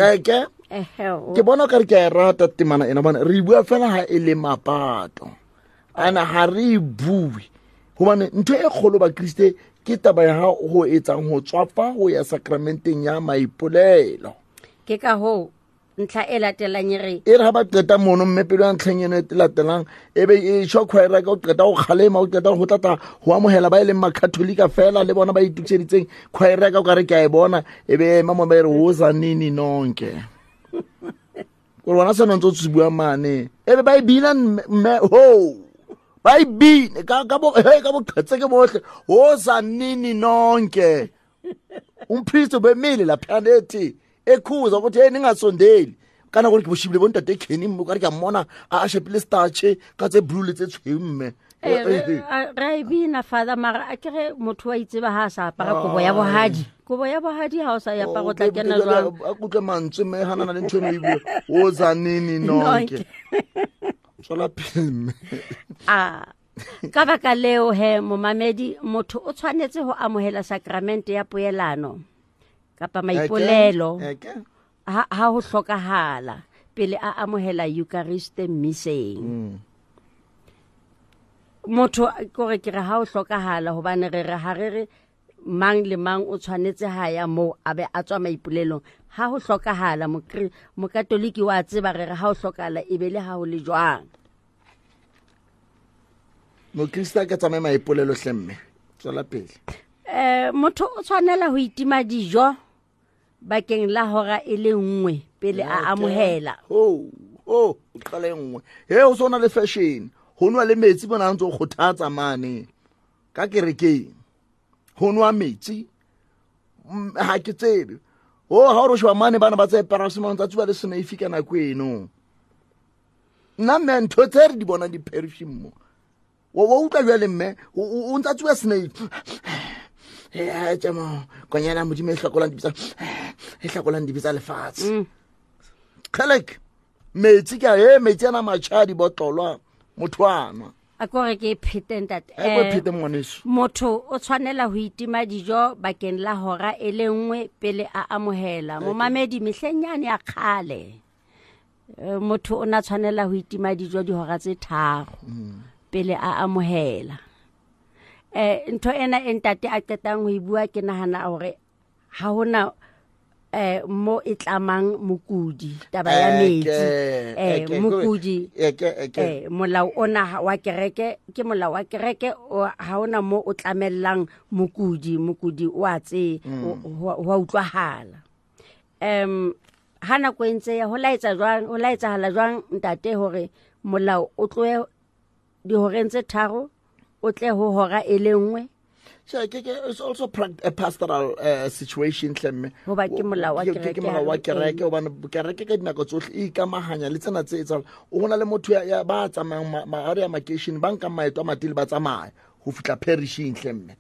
[SPEAKER 1] Ke bona o kare ke a e rata temana ena, hobane re bua fela ha e le mapato. Ana ha re e bue hobane ntho e kgolo bakriste ke taba ya ha ho etsang ho tswafa ho ya sakramenteng ya maipolelo.
[SPEAKER 5] Ke ka hoo ntlha e latelang e re
[SPEAKER 1] e re ha ba qeta mono mme pelo ya ntlheng eno e latelang e be e tjho choir ka o qeta ho kgalema, o qeta ho tlata ho amohela ba e leng makatholika fela le bona ba itokiseditseng. Choir ka o ka re ke a e bona, e be ema mo ba e re woza nini nonke. Gore bona seno ntse o se bua mane, e be ba e bina mme ho ba e bine ka ka bo he ka boqhetseke bohle, woza nini nonke. Umpriest obemile laphana ethi ekhuza ukuthi hey ningasondeli. Kana gore ke boshibile bo ntate Kenny mme o kare ke a mmona a shapile starch ka tse blue le tse tshweu mme.
[SPEAKER 5] Re e bina father, mara a kere motho wa itseba ha a sa apara kobo ya bohadi. Kobo ya bohadi ha o sa e apara o tla kena jwang?
[SPEAKER 1] A kutlwe mantswe mme ha nana le ntho eno e bua. O za nini nonke. Tswela pele mme.
[SPEAKER 5] A ka baka leo he momamedi, motho o tshwanetse ho amohela sakramente ya poelano kapa maipolelo ha ho hlokahala pele a amohela Eucharist mmiseng. Motho kore ke re ha ho hlokahala, hobane re re ha re re mang le mang o tshwanetse ha ya moo a be a tswa maipolelong. Ha ho hlokahala, mokatoliki wa tseba re re ha ho hlokahala e be le ha ho le jwang.
[SPEAKER 1] Mokrista a ka tsamaya maipolelo hle mme. Tswela pele.
[SPEAKER 5] Motho o tshwanela ho itima dijo bakeng la hora e le nngwe pele a amohela.
[SPEAKER 1] Ho, ho, o qala e nngwe. He, o sona le fashion. Ho nwa le metsi bona ntse o kgothatsa mane ka kerekeng. Ho nwa metsi, ha ke tsebe. Ho, ha o re sheba mane bana ba tse paracetamol tsa tsuba le seneifi ka nako eno. Nna mme ntho tse re di bonang di-perishing mo. Wa utlwa jwale mme, o ntsa tsuba seneifi. Tje mo, konyana Modimo e hlakolang dibe tsa, e hlakolang dibe tsa lefatshe. Kgelek, metsi ke a, he, metsi ana matjha a dibotlolwa, motho a nwa.
[SPEAKER 5] A ko re ke phete ntate.
[SPEAKER 1] A ko phete ngwaneso.
[SPEAKER 5] Motho o tshwanela ho itima dijo bakeng la hora e le nngwe pele a amohela. Momamedi mehleng yane ya kgale, motho o na tshwanela ho itima dijo dihora tse 3 pele a amohela. Ntho ena e ntate a qetang ho e bua, ke nahana hore ha hona mo e tlamang mokudi, taba ya metsi. Mokudi, molao ona wa kereke, ke molao wa kereke, ha hona mo o tlamellang mokudi, mokudi wa tse, wa utlwahala. Ha nako e ntse ya, ho laetsa jwang, ho laetsahala jwang ntate hore molao o tlohe dihoreng tse 3 o tle ho hora e le nngwe?
[SPEAKER 1] Che, ke, it's also a pastoral situation hle mme.
[SPEAKER 5] Hoba ke molao wa
[SPEAKER 1] Ke, ke
[SPEAKER 5] kereke
[SPEAKER 1] molao wa
[SPEAKER 5] ha re
[SPEAKER 1] kereke, hobane kereke ka dinako tsohle e ikamahanya le tsena tse etsahalang. O na le motho ya ba tsamayang ha re ya makeishene, ba nkang maeto a matele ba tsamaya ho fihla perishing hle mme.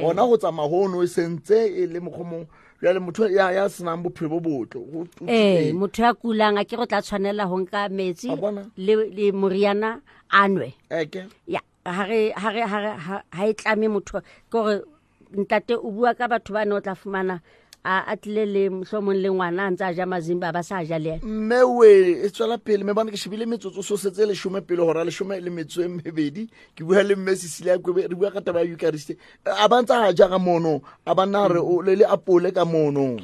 [SPEAKER 1] Hona ho tsamaya hono e sentse e le mokgwa mong. Jwale motho ya senang bophelo bo botle, ho teng.
[SPEAKER 5] Motho ya kulang a ke go tla tshwanela ho nka metsi
[SPEAKER 1] A bona?
[SPEAKER 5] le moriana a nwe.
[SPEAKER 1] Eke.
[SPEAKER 5] Ya. Ha re ha re ha re ha e tlame motho ke gore ntate o bua ka batho ba ne o tla fumana a tlile le mohlomong le ngwana a ntse a ja mazimba ba sa ja le ena.
[SPEAKER 1] Mme we e tswela pele mme bane ke shebile metsotso so setse leshome pele hora leshome le metso e mebedi. Ke bua le mme Cecilia Kwebe, re bua ka taba ya Eucharist. A ba ntse a ja ka mono, a ba nna re o le le apole ka mono.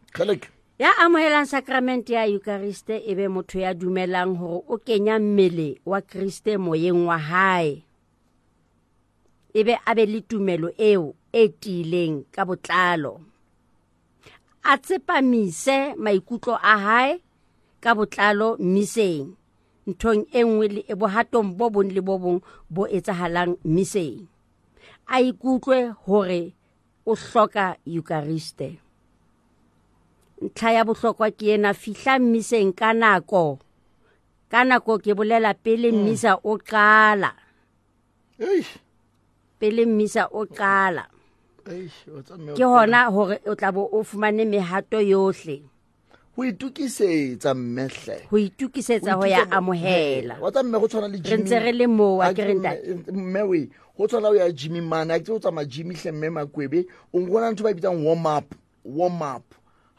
[SPEAKER 1] Kgeleke.
[SPEAKER 5] Ya amohelang sacrament ya Eucharist e be motho ya dumelang hore o kenya mmele wa Kriste moyeng wa hae. E be a be le tumelo eo e tiileng ka botlalo. A tsepamise maikutlo a hae ka botlalo mmiseng, nthong e nngwe le e bohatong bo bong le bo bong bo etsahalang mmiseng. A ikutlwe hore o hloka Eucharist. Ntlha ya bohlokwa ke ena, fihla mmiseng ka nako. Ka nako ke bolela pele mmisa o qala.
[SPEAKER 1] Eish.
[SPEAKER 5] Pele mmisa o qala.
[SPEAKER 1] Eish, o tsa mme o
[SPEAKER 5] Ke hona hore o tla bo o fumane mehato yohle.
[SPEAKER 1] Ho itokisetsa mmehle.
[SPEAKER 5] Ho itokisetsa ho ya amohela.
[SPEAKER 1] Wa tsa mme go tshwana le
[SPEAKER 5] Re
[SPEAKER 1] Jimmy.
[SPEAKER 5] ntse re le moo, a
[SPEAKER 1] A
[SPEAKER 5] ke re
[SPEAKER 1] ke
[SPEAKER 5] ntate.
[SPEAKER 1] mme we, go tshwana o ya Jimmy mane, a ke o tsamaya Jimmy hle mme Makwebe, o nkgona ntho ba e bitsang warm up, warm up.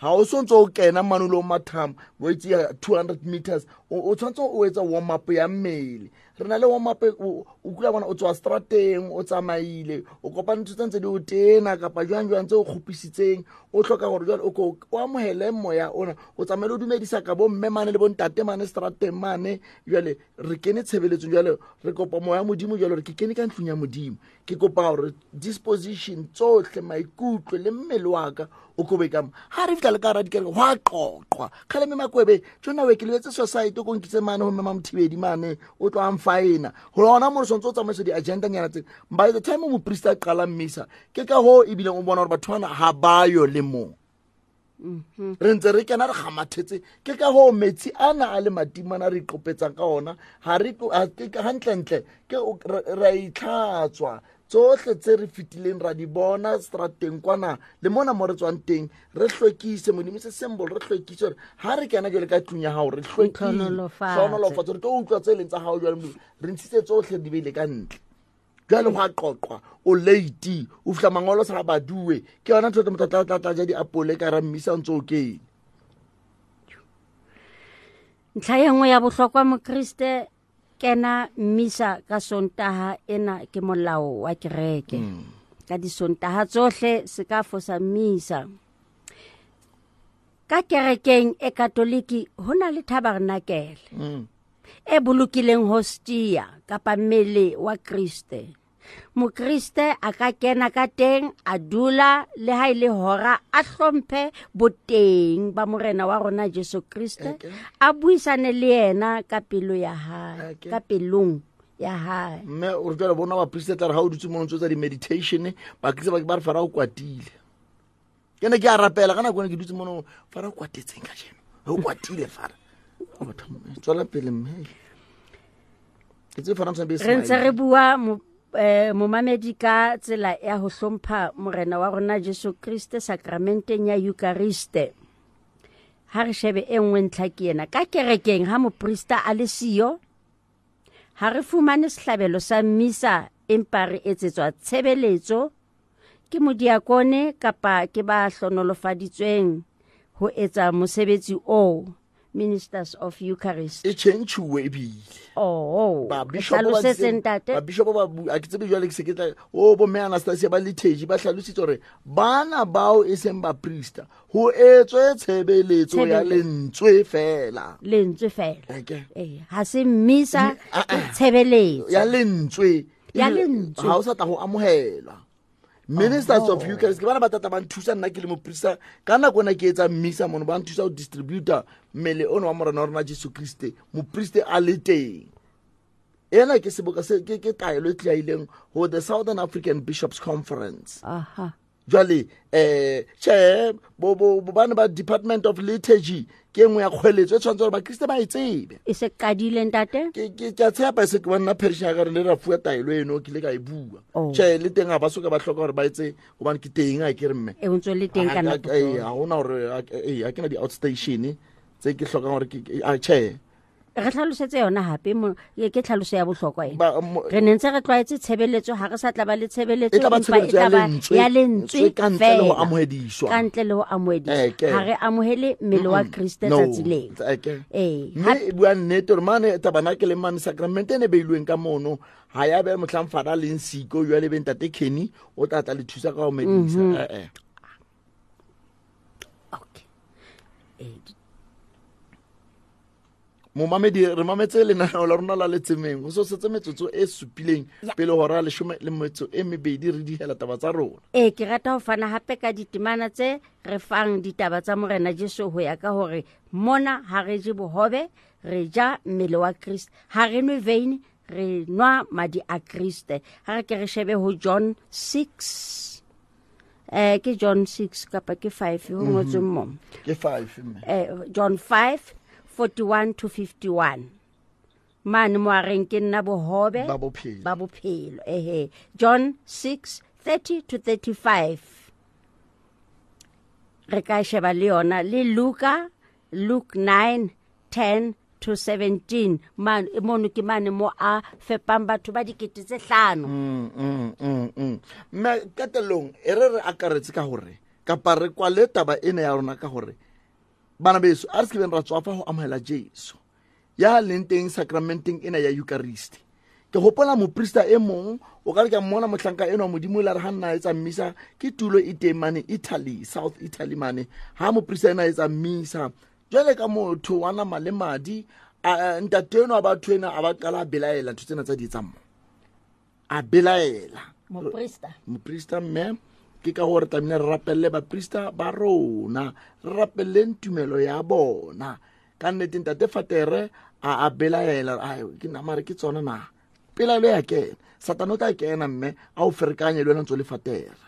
[SPEAKER 1] Ha o so ntse o kena mane o lo mathama, o itse ya 200 meters, o tshwanetse o etsa warm up ya mmele. Re na le warm up, o kula bona o tswa strateng, o tsamaile, o kopane ntho tse ntse di o tena kapa jwang jwang tse o kgopisitseng, o hloka hore jwale o ko o amohele moya ona, o tsamaile o dumedisa ka bo mme mane le bo ntate mane strateng mane. Jwale re kene tshebeletsong, jwale re kopa moya Modimo, jwale re ke kene ka ntlong ya Modimo. Ke kopa hore disposition tsohle, maikutlo le mmele wa ka o kobe ka mo. Ha re fihla le ka hara dikereke, ho a qoqwa. Kgale mme Makwebe, tjona we ke lebetse society ko nkitse mane ho mme Mamothibedi mane, o tlo a mfaena. Ho lona mo re sontse o tsamaisa di-agenda nyana tse. By the time moprista a qala mmisa, ke ka hoo ebileng o bona hore batho bana ha ba yo le mong. Re ntse re kena re kgamathetse. Ke ka hoo metsi ana a le matimana re iqopetsang ka ona, ha re tlo, ha ke ka hantlentle, ke o, re, re a itlhatswa. Tsohle tse re fetileng ra di bona strateng kwana le mona mo re tswang teng, re hlwekise Modimo se symbol, re hlwekise hore ha re kena jwale ka tlung ya hao, re hlwekile.
[SPEAKER 5] Ntlhonolofatse.
[SPEAKER 1] Hlohonolofatse, re tlo utlwa tse leng tsa hao jwale Modimo. Re ntshitse tsohle di beile ka ntle. Jwale ho a qoqwa, o late, o fihla mangolo sa baduwe. Ke yona ntho e motho a tla ja diapole ka hara mmisa o ntso o kene.
[SPEAKER 5] Ntlha e nngwe ya bohlokwa Mokriste, kena mmisa ka Sontaha ena ke molao wa kereke. Ka disontaha tsohle se ka fosa mmisa. Ka kerekeng e Katoliki ho na le tabernakele e bolokileng hostia kapa mmele wa Kriste. Mokriste a ka kena ka teng, a dula le ha e le hora, a hlomphe boteng ba Morena wa rona Jesu Kriste, a buisane le yena ka pelo ya hae, ka pelong ya hae.
[SPEAKER 1] Mme o re jwale bona baprista tla re ha o dutse mono ntso tsa di-meditation, bakriste ba ba re Fara o kwatile. Ke ne ke a rapela ka nako ena ke dutse mono, Fara o kwatetseng kajeno? O kwatile Fara. O batho, tswela pele mme. Ke tsebe Fara mosadi be
[SPEAKER 5] Re ntse
[SPEAKER 1] smile.
[SPEAKER 5] re bua momamedi ka tsela ya ho hlompha Morena wa rona Jesu Kriste sakramenteng ya Eucharist. Ha re shebe e nngwe ntlha ke ena. Ka kerekeng ha moprista a le siyo, ha re fumane sehlabelo sa mmisa, empa re etsetswa tshebeletso ke modiakone kapa ke ba hlonolofaditsweng ho etsa mosebetsi oo, Ministers of Eucharist.
[SPEAKER 1] E tjhentjhuwe ebile.
[SPEAKER 5] Oh,
[SPEAKER 1] Ba
[SPEAKER 5] re
[SPEAKER 1] bishop ba
[SPEAKER 5] hlalosetse
[SPEAKER 1] ntse-
[SPEAKER 5] ntate.
[SPEAKER 1] ba bishop ba bu-, a ke tsebe jwale ke se ke tla, oh, bo mme Anastasia ba liturgy ba hlalositse hore bana bao e seng baprista ho etswe tshebeletso ya
[SPEAKER 5] Tshebeletso.
[SPEAKER 1] lentswe fela.
[SPEAKER 5] Lentswe fela.
[SPEAKER 1] Okay.
[SPEAKER 5] Ha se mmisa,
[SPEAKER 1] Di-, ah,
[SPEAKER 5] ke
[SPEAKER 1] ah.
[SPEAKER 5] tshebeletso.
[SPEAKER 1] Ya lentswe.
[SPEAKER 5] Ya
[SPEAKER 1] Ebile
[SPEAKER 5] lentswe.
[SPEAKER 1] ha o sa tla ho amohelwa. Ministers of
[SPEAKER 5] Oh.
[SPEAKER 1] Eucharist ke bana ba tata ba nthusa nna ke le moprista ka nako ena ke etsa mmisa mono, ba nthusa ho distributor mmele ono wa Morena wa rona Jesu Kriste, mopriste a le teng. Ena ke seboka se, ke taelo e tlaileng ho the Southern African Bishops Conference.
[SPEAKER 5] Aha.
[SPEAKER 1] Jwale, tjhe, bo, bo, bo bana ba Department of Liturgy ke e nngwe ya kgweletso e tshwanetse hore Bakriste ba e tsebe.
[SPEAKER 5] E se qadile ntate?
[SPEAKER 1] Ke a tshepa e se ke wa nna parish ya ka re le ra fuwa taelo eno, ke ile ka e bua.
[SPEAKER 5] Oh.
[SPEAKER 1] Tjhe, le teng ha ba soka ba hloka hore ba etse, hobane ke teng, ha ke re mme.
[SPEAKER 5] E, o ntso le teng ka nako tsohle.
[SPEAKER 1] Ha hona hore, ha ke na di-outstation tse ke hlokang hore ke, a, tjhe.
[SPEAKER 5] Re tlhalosetse yona hape ke tlhaloso ya bohlokwa ena. Re ne ntse re tlwaetse tshebeletso, ha re sa tla ba le tshebeletso,
[SPEAKER 1] E tla ba
[SPEAKER 5] empa e
[SPEAKER 1] tshebeletso ya
[SPEAKER 5] tla ba
[SPEAKER 1] lentswe,
[SPEAKER 5] ya lentswe
[SPEAKER 1] ka ntle le ho
[SPEAKER 5] feela.
[SPEAKER 1] amohediswa.
[SPEAKER 5] Ka ntle le ho amohediswa.
[SPEAKER 1] Eke.
[SPEAKER 5] Ha re amohele mmele wa Kriste
[SPEAKER 1] No,
[SPEAKER 5] tsatsi leo.
[SPEAKER 1] eke.
[SPEAKER 5] Ee.
[SPEAKER 1] Mme e bua nnete gore mane tabernakeleng mane sacramente e ne beilweng ka mono ga ya be motlhang fada leng siko jale be ntate Kenny o tla tla le thusa ka go medisa. Eh, eh.
[SPEAKER 5] Okay.
[SPEAKER 1] Momamedi, re mametse lenaneo la rona la letsemeng go so setse metsotso e supileng pele hora 12 re dihela taba tsa rona.
[SPEAKER 5] Ee, ke rata ho fana hape ka ditemana tse re fang ditaba tsa Morena Jesu ho ya ka hore mona ha re je bohobe, re ja mmele wa Kriste, ha re nwe veine, re nwa madi a Kriste. Ha re ke re shebe ho John 6. Ke John 6 kapa ke 5 ho ngotsweng mo.
[SPEAKER 1] Ke 5 mme.
[SPEAKER 5] John 5 41 to 51. Mane mo a reng ke nna bohobe
[SPEAKER 1] Ba bophelo.
[SPEAKER 5] Ba bophelo. Ehe. John 6 30 to 35. Re ka sheba le yona le Luka, Luke 9 10 to 17. Man, mono ke mane mo a fepang batho ba dikete tse hlano.
[SPEAKER 1] Mme qetellong e re re akaretse ka hore kapa re kwale taba ena ya rona ka hore bana beso a re se kebeng ra tswafa ho amohela Jesu ya leng teng sacramenteng ena ya Eucharist. Ke hopola moprista e mong o ka re ke mmona mohlanka enwa Modimo la re ha nna etsa mmisa ke tulo e teng mane Italy, South Italy mane. Ha moprista ena etsa mmisa jwale ka motho wa nama le madi, ntate enwa wa batho ena a ba qala a belaela ntho tsena tsa di etsang mo. A belaela.
[SPEAKER 5] Moprista.
[SPEAKER 1] Moprista mme ke ka hore tlamehile re rapelle baprista ba rona, re rapelleng tumelo ya bona. Ka nnete ntate Fatere a belaela, ai, ke nama re ke tsona na. Pelaelo ya kena. Satane o tla kena mme a o ferekanye le wena ntse o le Fatere.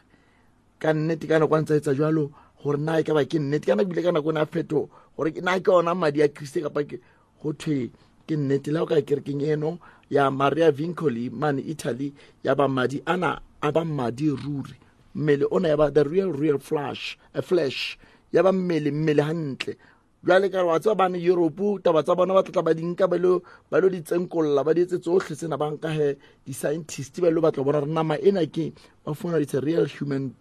[SPEAKER 1] Ka nnete ka nako a ntse a etsa jwalo hore na e ka ba ke nnete, ka nako ebile ka nako ena a phetho hore na ke ona madi a Kriste kapa ke ho thwe ke nnete. Le ha o ka ya kerekeng eno ya Maria Vincoli mane Italy, ya ba madi ana a ba madi ruri. Mmele ona ya ba the real, real flesh, a flesh ya ba mmele, mmele hantle. Jwale ka re wa tseba bane Europe taba tsa bona ba tla tla ba di nka ba lo di tsenkolla, ba di etse tsohle tsena, ba nka he di-scientist ba lo batla ho bona hore nama ena ke ba fumana it's a real human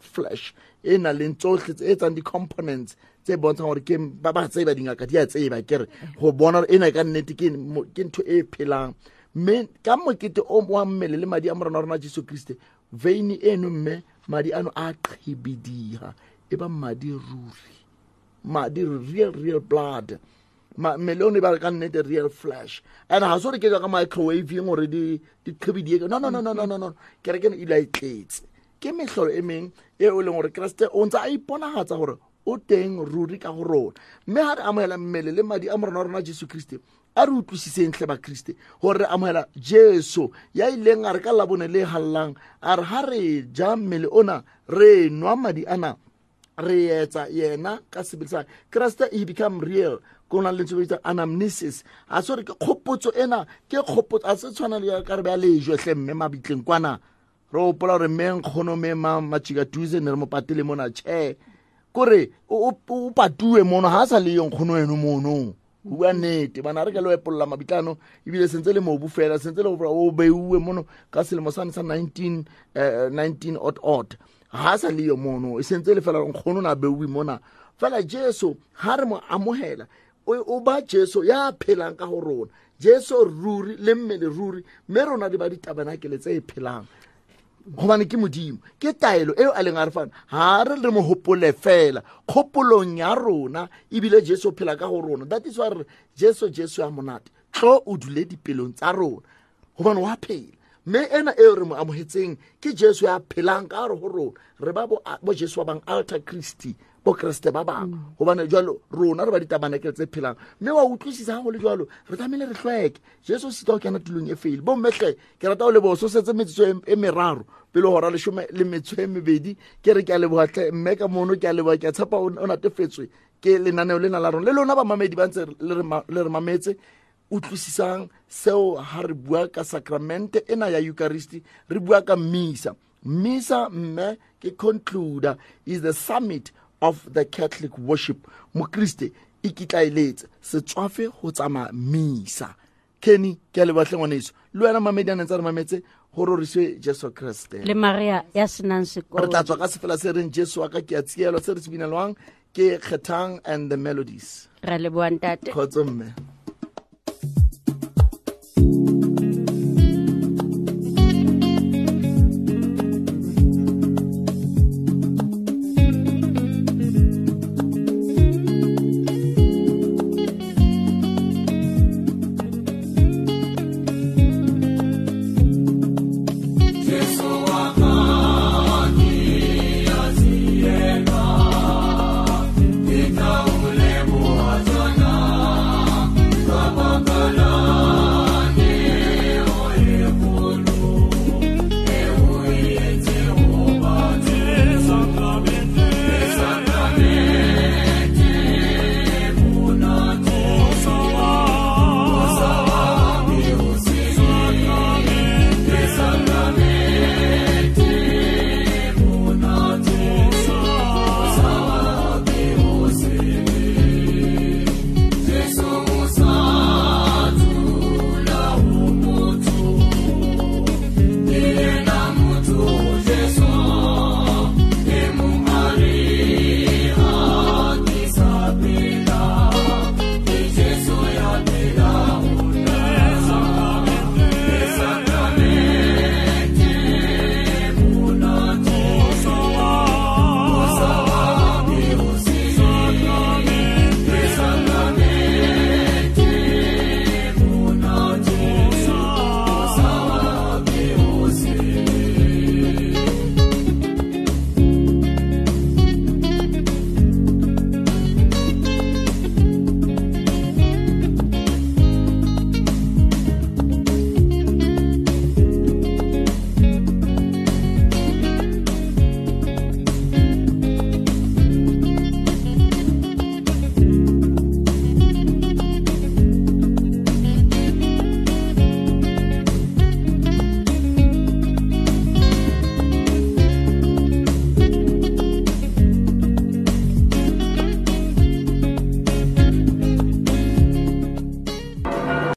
[SPEAKER 1] flesh e nang le tsohle tse etsang di-components tse bontshang hore ke ba ba tseba dingaka di a tseba ke re ho bona hore ena ka nnete ke ntho e phelang. Mme ka mokete o wa mmele le madi a Morena wa rona Jesu Kriste, veine eno mme madi ano a qhibidiha, e ba madi ruri, madi real, real blood. Mmele ono e ba ka nnete real flesh. And ha se hore ke jwa ka microwave hore di qhibidie. No, no, no, no, no, no, no. Kereke eno e ile a e tletse. Ke mehlolo e meng e o leng hore Kreste o ntse a iponahatsa hore o teng ruri ka ho rona. Mme ha re amohela mmele le madi a Morena wa rona Jesu Kriste, a re utlwisiseng hle ba Kriste hore re amohela Jesu ya ileng a re ka labone le hallang, a re ha re ja mmele ona, re nwa madi ana, re etsa yena ka sebele sa Kriste, he become real. Ko na le lentswe le bitswang anamnesis. A se hore ke kgopotso ena, ke kgopotso, a se tshwana le ya ka re beha lejwe hle mme mabitleng kwana. Re hopola hore mme nkgono mme Matjika Duze ne re mo patele mona, tjhe. Kore o patuwe mono, ha sa le yo nkgono eno mono. Ho bua nnete, bana re ka lo epolla mabitlano, ebile sentse le mobu fela, sentse le hore o beuwe mono ka selemo sane sa nineteen odd odd. Ha sa le yo mono, e sentse le fela nkgono na beuwe mona. Fela Jesu ha re mo amohela, o ba Jesu ya phelang ka ho rona. Jesu ruri le mmele ruri, mme rona di ba ditabanakele tse phelang. Hobane ke Modimo, ke taelo eo a leng a re fana. Ha re re mo hopole fela kgopolong ya rona, ebile Jesu o phela ka ho rona. That is why re Jesu, Jesu ya monate, tlo o dule dipelong tsa rona, hobane wa phela. Mme ena eo re mo amohetseng ke Jesu ya phelang ka hare ho rona. Re ba bo Jesu ba bang, alter Christi, bo Kreste ba bang. Hobane jwalo rona re ba ditabanakele tse phelang. Mme wa utlwisisa ha ho le jwalo, re tlamehile re hlweke. Jesu o sitwa ho kena tulong e feile. Bo mme hle, ke rata ho leboha, so setse metsotso e meraro pele hora leshome le metso e mebedi. Ke re ke a leboha hle, mme ka mono ke a leboha, ke a tshepa o natefetswe ke lenaneo lena la rona. Le lona bamamedi ba ntse le re mametse, utlwisisang seo ha re bua ka sacramente ena ya Eucharist, re bua ka misa. Misa mme ke concluder, is the summit of the Catholic worship. Mokriste ikitlaeletse, se tswafe ho tsamaya misa. Kenny, ke a leboha hle ngwaneso. Le wena mamedi a neng tsa re mametse, ho roriswe Jesu Kreste.
[SPEAKER 5] Le Maria ya senang
[SPEAKER 1] Re
[SPEAKER 5] sekolo.
[SPEAKER 1] tla tswa ka sefela se reng Jesu wa ka ke a tsielwa, se re se binelwang ke Kgethang and the Melodies.
[SPEAKER 5] Ra leboha ntate.
[SPEAKER 1] Kgotso mme.